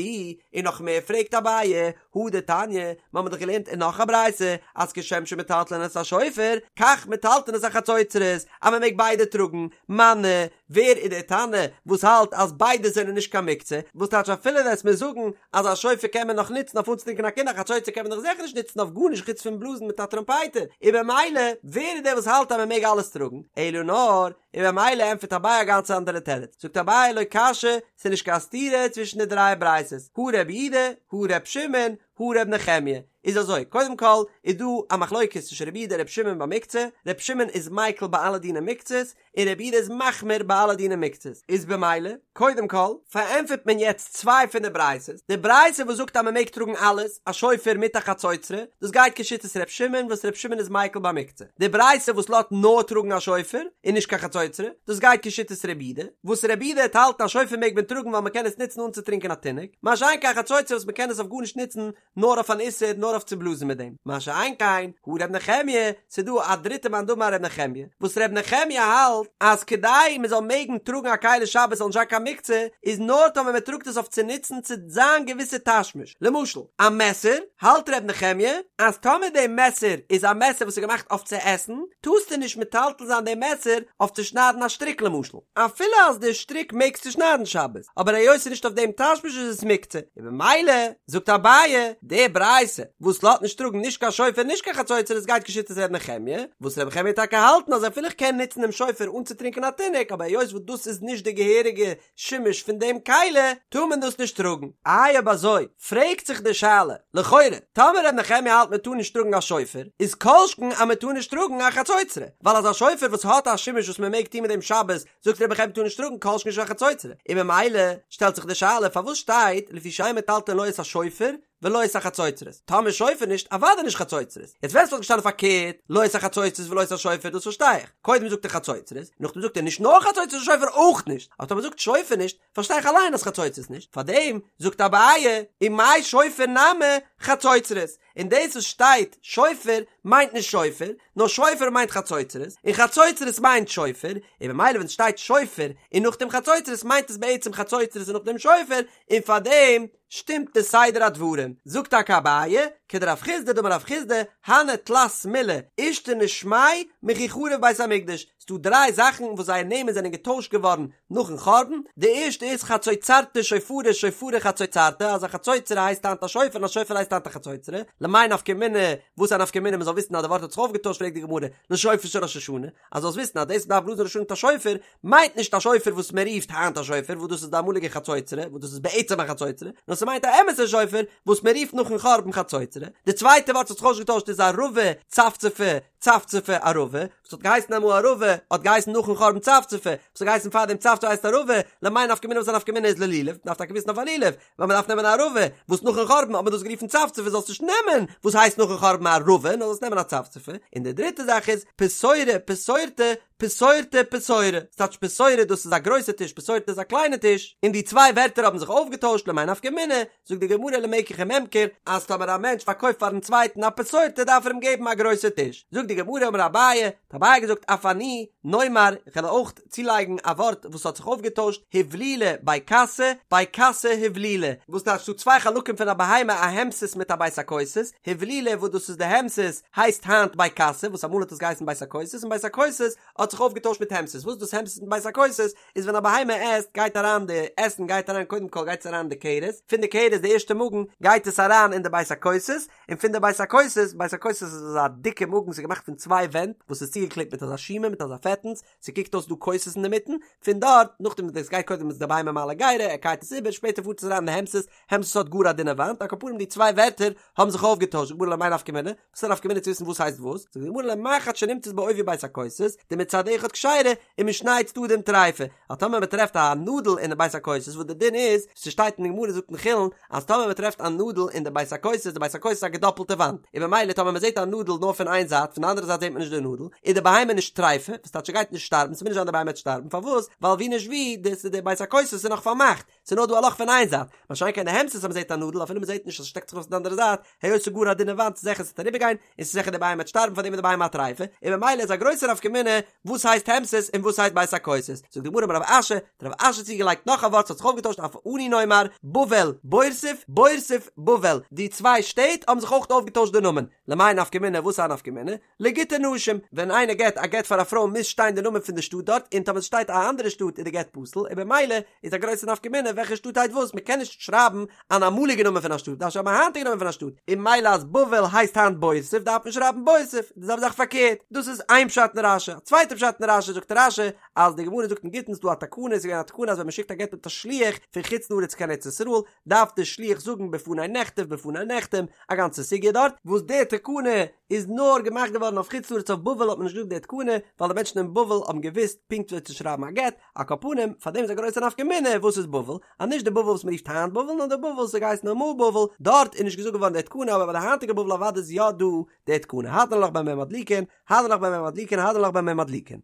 און נאך מער פרעגט אביי, הא דתניא, מ'האמיר דאך געלערנט אין נאך א ברייתא, אז כשם שמטלטלין את השופר, כך מטלטלין את החצוצרות, אז מ'מעג ביידע טראגן, מני, ווער איז דער תנא וואס האלט אז ביידע זענען נישט קיין מוקצה, וואס טייטש אפילו וועסט מיר זאגן אז א שופר קען מען נאך נוצן אויף אנצוטרינקען א קינד א חצוצרה קען מען דאך זיכער נישט נוצן אויף גארנישט חוץ פון בלאזן מיט א טראמפייטער, און במילא ווער איז דער וואס האלט אז מען מעג אלעס טראגן, אלא נאר, און במילא ענטפערט אביי א גאנץ אנדערע תירוץ, זאגט אביי לא קשיא, ס'איז נישט קיין סתירה צווישן די דריי ברייתות, הא רבי יהודה, הא ר' שמעון, הא ר' נחמיה, איז אזוי, קודם כל איז דא א מחלוקת צווישן רבי יהודה און ר' שמעון ביי מוקצה, ר' שמעון איז מיקל ביי אלע דיני מוקצות, און רבי יהודה איז מחמיר ביי אלע דיני מוקצות, איז במילא, קודם כל, פארענטפערט מען יעצט צוויי פון די ברייתות, די ברייתא וואס זאגט אז מען מעג טראגן אלעס, א שופר מיט א חצוצרה, דאס גייט כשיטת ר' שמעון וואס ר' שמעון איז מיקל ביי מוקצה, די ברייתא וואס לאזט נאר טראגן א שופר, און נישט קיין חצוצרה, דאס גייט כשיטת רבי יהודה, וואס רבי יהודה וועט האלטן א שופר מעג מען טראגן ווייל מען קען עס נוצן אנצוטרינקען א תינוק, מה שאין כן א חצוצרה וואס מען קען עס אויף גארנישט נוצן, נאר אויף אן איסור נאר אויף צו בלאזן מיט דעם, מה שאין כן הא ר' נחמיה, ס'איז דא א דריטע מאן דאמר ר' נחמיה, וואס ר' נחמיה האלט אז כדי מ'זאל מעגן טראגן א כלי שבת זאל נישט זיין קיין מוקצה, איז נאר טאמער מ'טראגט עס אויף צו נוצן צו זיין געוויסע תשמיש, למשל א מעסער, האלט ר' נחמיה אז טאמער די מעסער איז א מעסער וואס איז געמאכט אויף צו עסן, טארסטו נישט מטלטל זיין די מעסער אויף צו שניידן א שטריק למשל, אפילו אז די שטריק מעגסטו שניידן שבת, אבער היות ס'איז נישט אויף דעם תשמיש איז עס מוקצה, און במילא זאגט אביי, די ברייתא וואס לאזט נישט טראגן נישט קיין שופר נישט קיין חצוצרה עס גייט כשיטת ר' נחמיה, וואס ר' נחמיה וועט טאקע האלטן אז אפילו איך קען נוצן דעם שופר אנצוטרינקען א תינוק אבער היות וואס דאס איז נישט די געהעריגע שימוש פון דעם כלי טאר מען דאס נישט טראגן. איי אויב אזוי פרעגט זיך די שאלה, לכאורה טאמער ר' נחמיה האלט מען טאר נישט טראגן א שופר איז כל שכן אז מען טאר נישט טראגן א חצוצרה, ווייל אז א שופר וואס האט א שימוש וואס מען מעג טון מיט דעם שבת זאגט ר' נחמיה טאר נישט טראגן כל שכן נישט א חצוצרה, און ממילא שטעלט זיך די שאלה פארוואס שטייט לפי שאין מטלטלין לא את השופר ולא את החצוצרות, טאמער שופר נישט אוודאי נישט חצוצרות, יעצט ווען ס'וואלט געשטאנען פארקערט לא את החצוצרות ולא את השופר דאס פארשטיי איך, קודם זאגט ער חצוצרות, נאכדעם זאגט ער נישט נאר חצוצרות שופר אויך נישט, אבער טאמער זאגט שופר נישט פארשטיי איך אליין אז חצוצרות נישט, פארדעם זאגט אביי ומאי שופר נמי חצוצרות, און דאס וואס שטייט שופר מיינט נישט שופר, נאר שופר מיינט חצוצרות, און חצוצרות מיינט שופר, און במילא ווען ס'שטייט שופר און נאכדעם חצוצרות מיינט עס בעצם חצוצרות און נאכדעם שופר, און פארדעם שטימט די סדר הדברים. זאגט טאקע אביי, כדרב חסדא דאמר רב חסדא, הני תלת מילי אישתני שמייהו מכי חרב בית המקדש, ס'דא דריי זאכן וואס זייער נעמען זענען געטוישט געווארן נאכן חורבן, די ערשטע איז חצוצרתא שופרא שופרא חצוצרתא, אז א חצוצרה הייסט היינט א שופר און א שופר הייסט היינט א חצוצרה, למאי נפקא מינה, וואס איז א נפקא מינה מ'זאל וויסן אז די ווארט האט זיך אויפגעטוישט פרעגט די גמרא, לשופר של ראש השנה, אז זאלסט וויסן אז דאס מ'דארף בלאזן ראש השנה מיט א שופר, מיינט נישט א שופר וואס מען רופט היינט א שופר וואס דאס איז די אמאליגע חצוצרה וואס דאס איז בעצם א חצוצרה, נאר ס'מיינט א אמת'ע שופר וואס מען רופט נאכן חורבן חצוצרה, די צווייטע ווארט וואס האט זיך אויסגעטוישט איז ערבה צפצפה, צפצפה ערבה, וואס האט געהייסן אמאל ערבה, האט געהייסן נאכן חורבן צפצפה, וואס האט געהייסן פארדעם צפצפה הייסט ערבה, למאי נפקא מינה וואס א נפקא מינה איז ללולב, מ'דארף טאקע וויסן אויף א לולב, ווייל מ'דארף נעמען א ערבה, וואס נאכן חורבן האט מען דאס גערופן צפצפה זאלסט נישט נעמען וואס הייסט נאכן חורבן ערבה, נאר זאלסט נעמען א צפצפה, און די דריטע זאך איז, פתורא פתורתא, פתורתא פתורא, ס'טייטש פתורא דאס איז א גרויסע טיש פתורתא איז א קליינע טיש, און די צוויי ווערטער האבן זיך אויפגעטוישט למאי נפקא מינה, זאגט די גמרא למקח וממכר, אז טאמער א מענטש פארקויפט פארן צווייטן א פתורתא דארף ער אים געבן א גרויסע טיש, זאגט די גמרא אמר אביי, האט אביי געזאגט אף אני נאמר, איך וועל אויך צולייגן א ווארט וואס האט זיך אויפגעטוישט, הבלילה בי כסא, בי כסא הבלילה, וואס טייטש ס'דא צוויי חלקים פון א בהמה א המסס מיט א בית הכוסות, הבלילה וואס דאס איז די המסס הייסט היינט בי כסא וואס אמאל האט עס געהייסן בית הכוסות און בית הכוסות האט זיך. זיך אויפגעטוישט מיט המסית, וואס איז דאס המסית מיט בית הכוסות? איז ווען א בהמה עסט גייט אריין די עסן גייט אריין קודם כל גייט עס אריין אין די כרס, פון די כרס די ערשטע מאגן גייט עס אריין אין די בית הכוסות, און פון די בית הכוסות, בית הכוסות איז אזא דיקע מאגן ס'איז געמאכט פון צוויי ווענט וואס איז צוגעקלעבט מיט אזא שומה מיט אזא פעטנס, ס'קוקט אויס דא כוסות אינדערמיטן, פון דארט נאכדעם וואס דאס גייט קודם איז די בהמה מעלה גרה, ער קייט עס איבער, שפעטער פארט עס אריין אין די המסית, המסית האט גאר א דינע וואנט, על כל פנים די צוויי ווערטער האבן זיך אויפגעטוישט, זאגט די גמרא למאי נפקא מינה? וואס איז א נפקא מינה צו וויסן וואס הייסט וואס? זאגט די גמרא למחט שנמצאת בעובי בית הכוסות, דמצד אחד כשרה, ומשני צדדים טריפה, אז טאמער מען טרעפט א נאדל אין די בית הכוסות וואס די דין איז, ס'שטייט אין די גמרא זאגט אין חולין, אז טאמער מען טרעפט א נאדל אין די בית הכוסות, די בית הכוסות איז א געדאפלטע וואנט, און במילא טאמער מען זעט א נאדל נאר פון איין זייט, פון די אנדערע זייט זעט מען נישט די נאדל, איז די בהמה נישט טריפה, וואס טייטש ס'גייט נישט שטארבן, ס'מוז נישט זיין די בהמה וועט שטארבן, פארוואס? ווייל ווי נישט ווי, די בית הכוסות איז נאך פארמאכט, ס'איז נאר דא א לאך פון איין זייט, מה שאין כן די המסית אז מ'זעט א נאדל אפילו מ'זעט נישט אז ס'שטעקט זיך ארויס פון די אנדערע זייט, היות ס'איז גאר א דינע וואנט איז זיכער ס'וועט אריבערגיין, און ס'איז זיכער די בהמה וועט שטארבן פארדעם איז די בהמה א טריפה, און במילא איז א גרויסע נפקא מינה וואס הייסט המסית און וואס הייסט בית הכוסות. זאגט די גמרא אמר רב אשי, האט רב אשי צוגעלייגט נאך א ווארט ס'האט זיך אויפגעטוישט אף אנו נאמר, בבל, בורסיף, בורסיף, בבל, די צוויי שטעט האבן זיך אויך אויפגעטוישט די נאמען, למאי נפקא מינה וואס איז א נפקא מינה? לגיטי נשים, ווען איינער געט א גט פאר א פרוי מוז שטיין די נאמען פון די שטאט דארט, און טאמער עס שטייט א אנדערע שטאט איז די גט פסול, און במילא איז א גרויסע נפקא מינה וועלכע שטאט הייסט וואס, מען קען נישט שרייבן אן אמאליגע נאמען פון א שטאט, דארף שרייבן א היינטיגע נאמען פון א שטאט, און מילא אז בבל הייסט היינט בורסיף דארף מען שרייבן בורסיף, די זעלבע זאך פארקערט, דאס איז איין פשט אין רשי, א צווייטע פשט אין רשי זאגט רשי אז די גמרא זאגט אין גיטין ס'דא א תקנה, ס'איז געווען א תקנה אז ווען מען שיקט א גט מיט א שליח פון חוץ לארץ קיין ארץ ישראל, דארף דער שליח זאגן בפני נכתב בפני נחתם, א גאנצע סוגיא דארט, וואס די תקנה איז נאר געמאכט געווארן אויף חוץ לארץ אויף בבל האט מען נישט געזאגט די תקנה, ווייל די מענטשן אין בבל האבן געוואוסט פונקט וויאזוי צו שרייבן א גט, על כל פנים, פאר דעם איז א גרויסע נפקא מינה וואס איז בבל, אז נישט די בבל וואס מען רופט היינט בבל נאר די בבל וואס האט געהייסן אמאל בבל, דארט איז נישט געזאגט געווארן די תקנה אבער ביי די היינטיגע בבל אוודאי איז יא דא די תקנה, הדרן עלך במה מדליקין, הדרן עלך במה מדליקין, הדרן עלך במה מדליקין.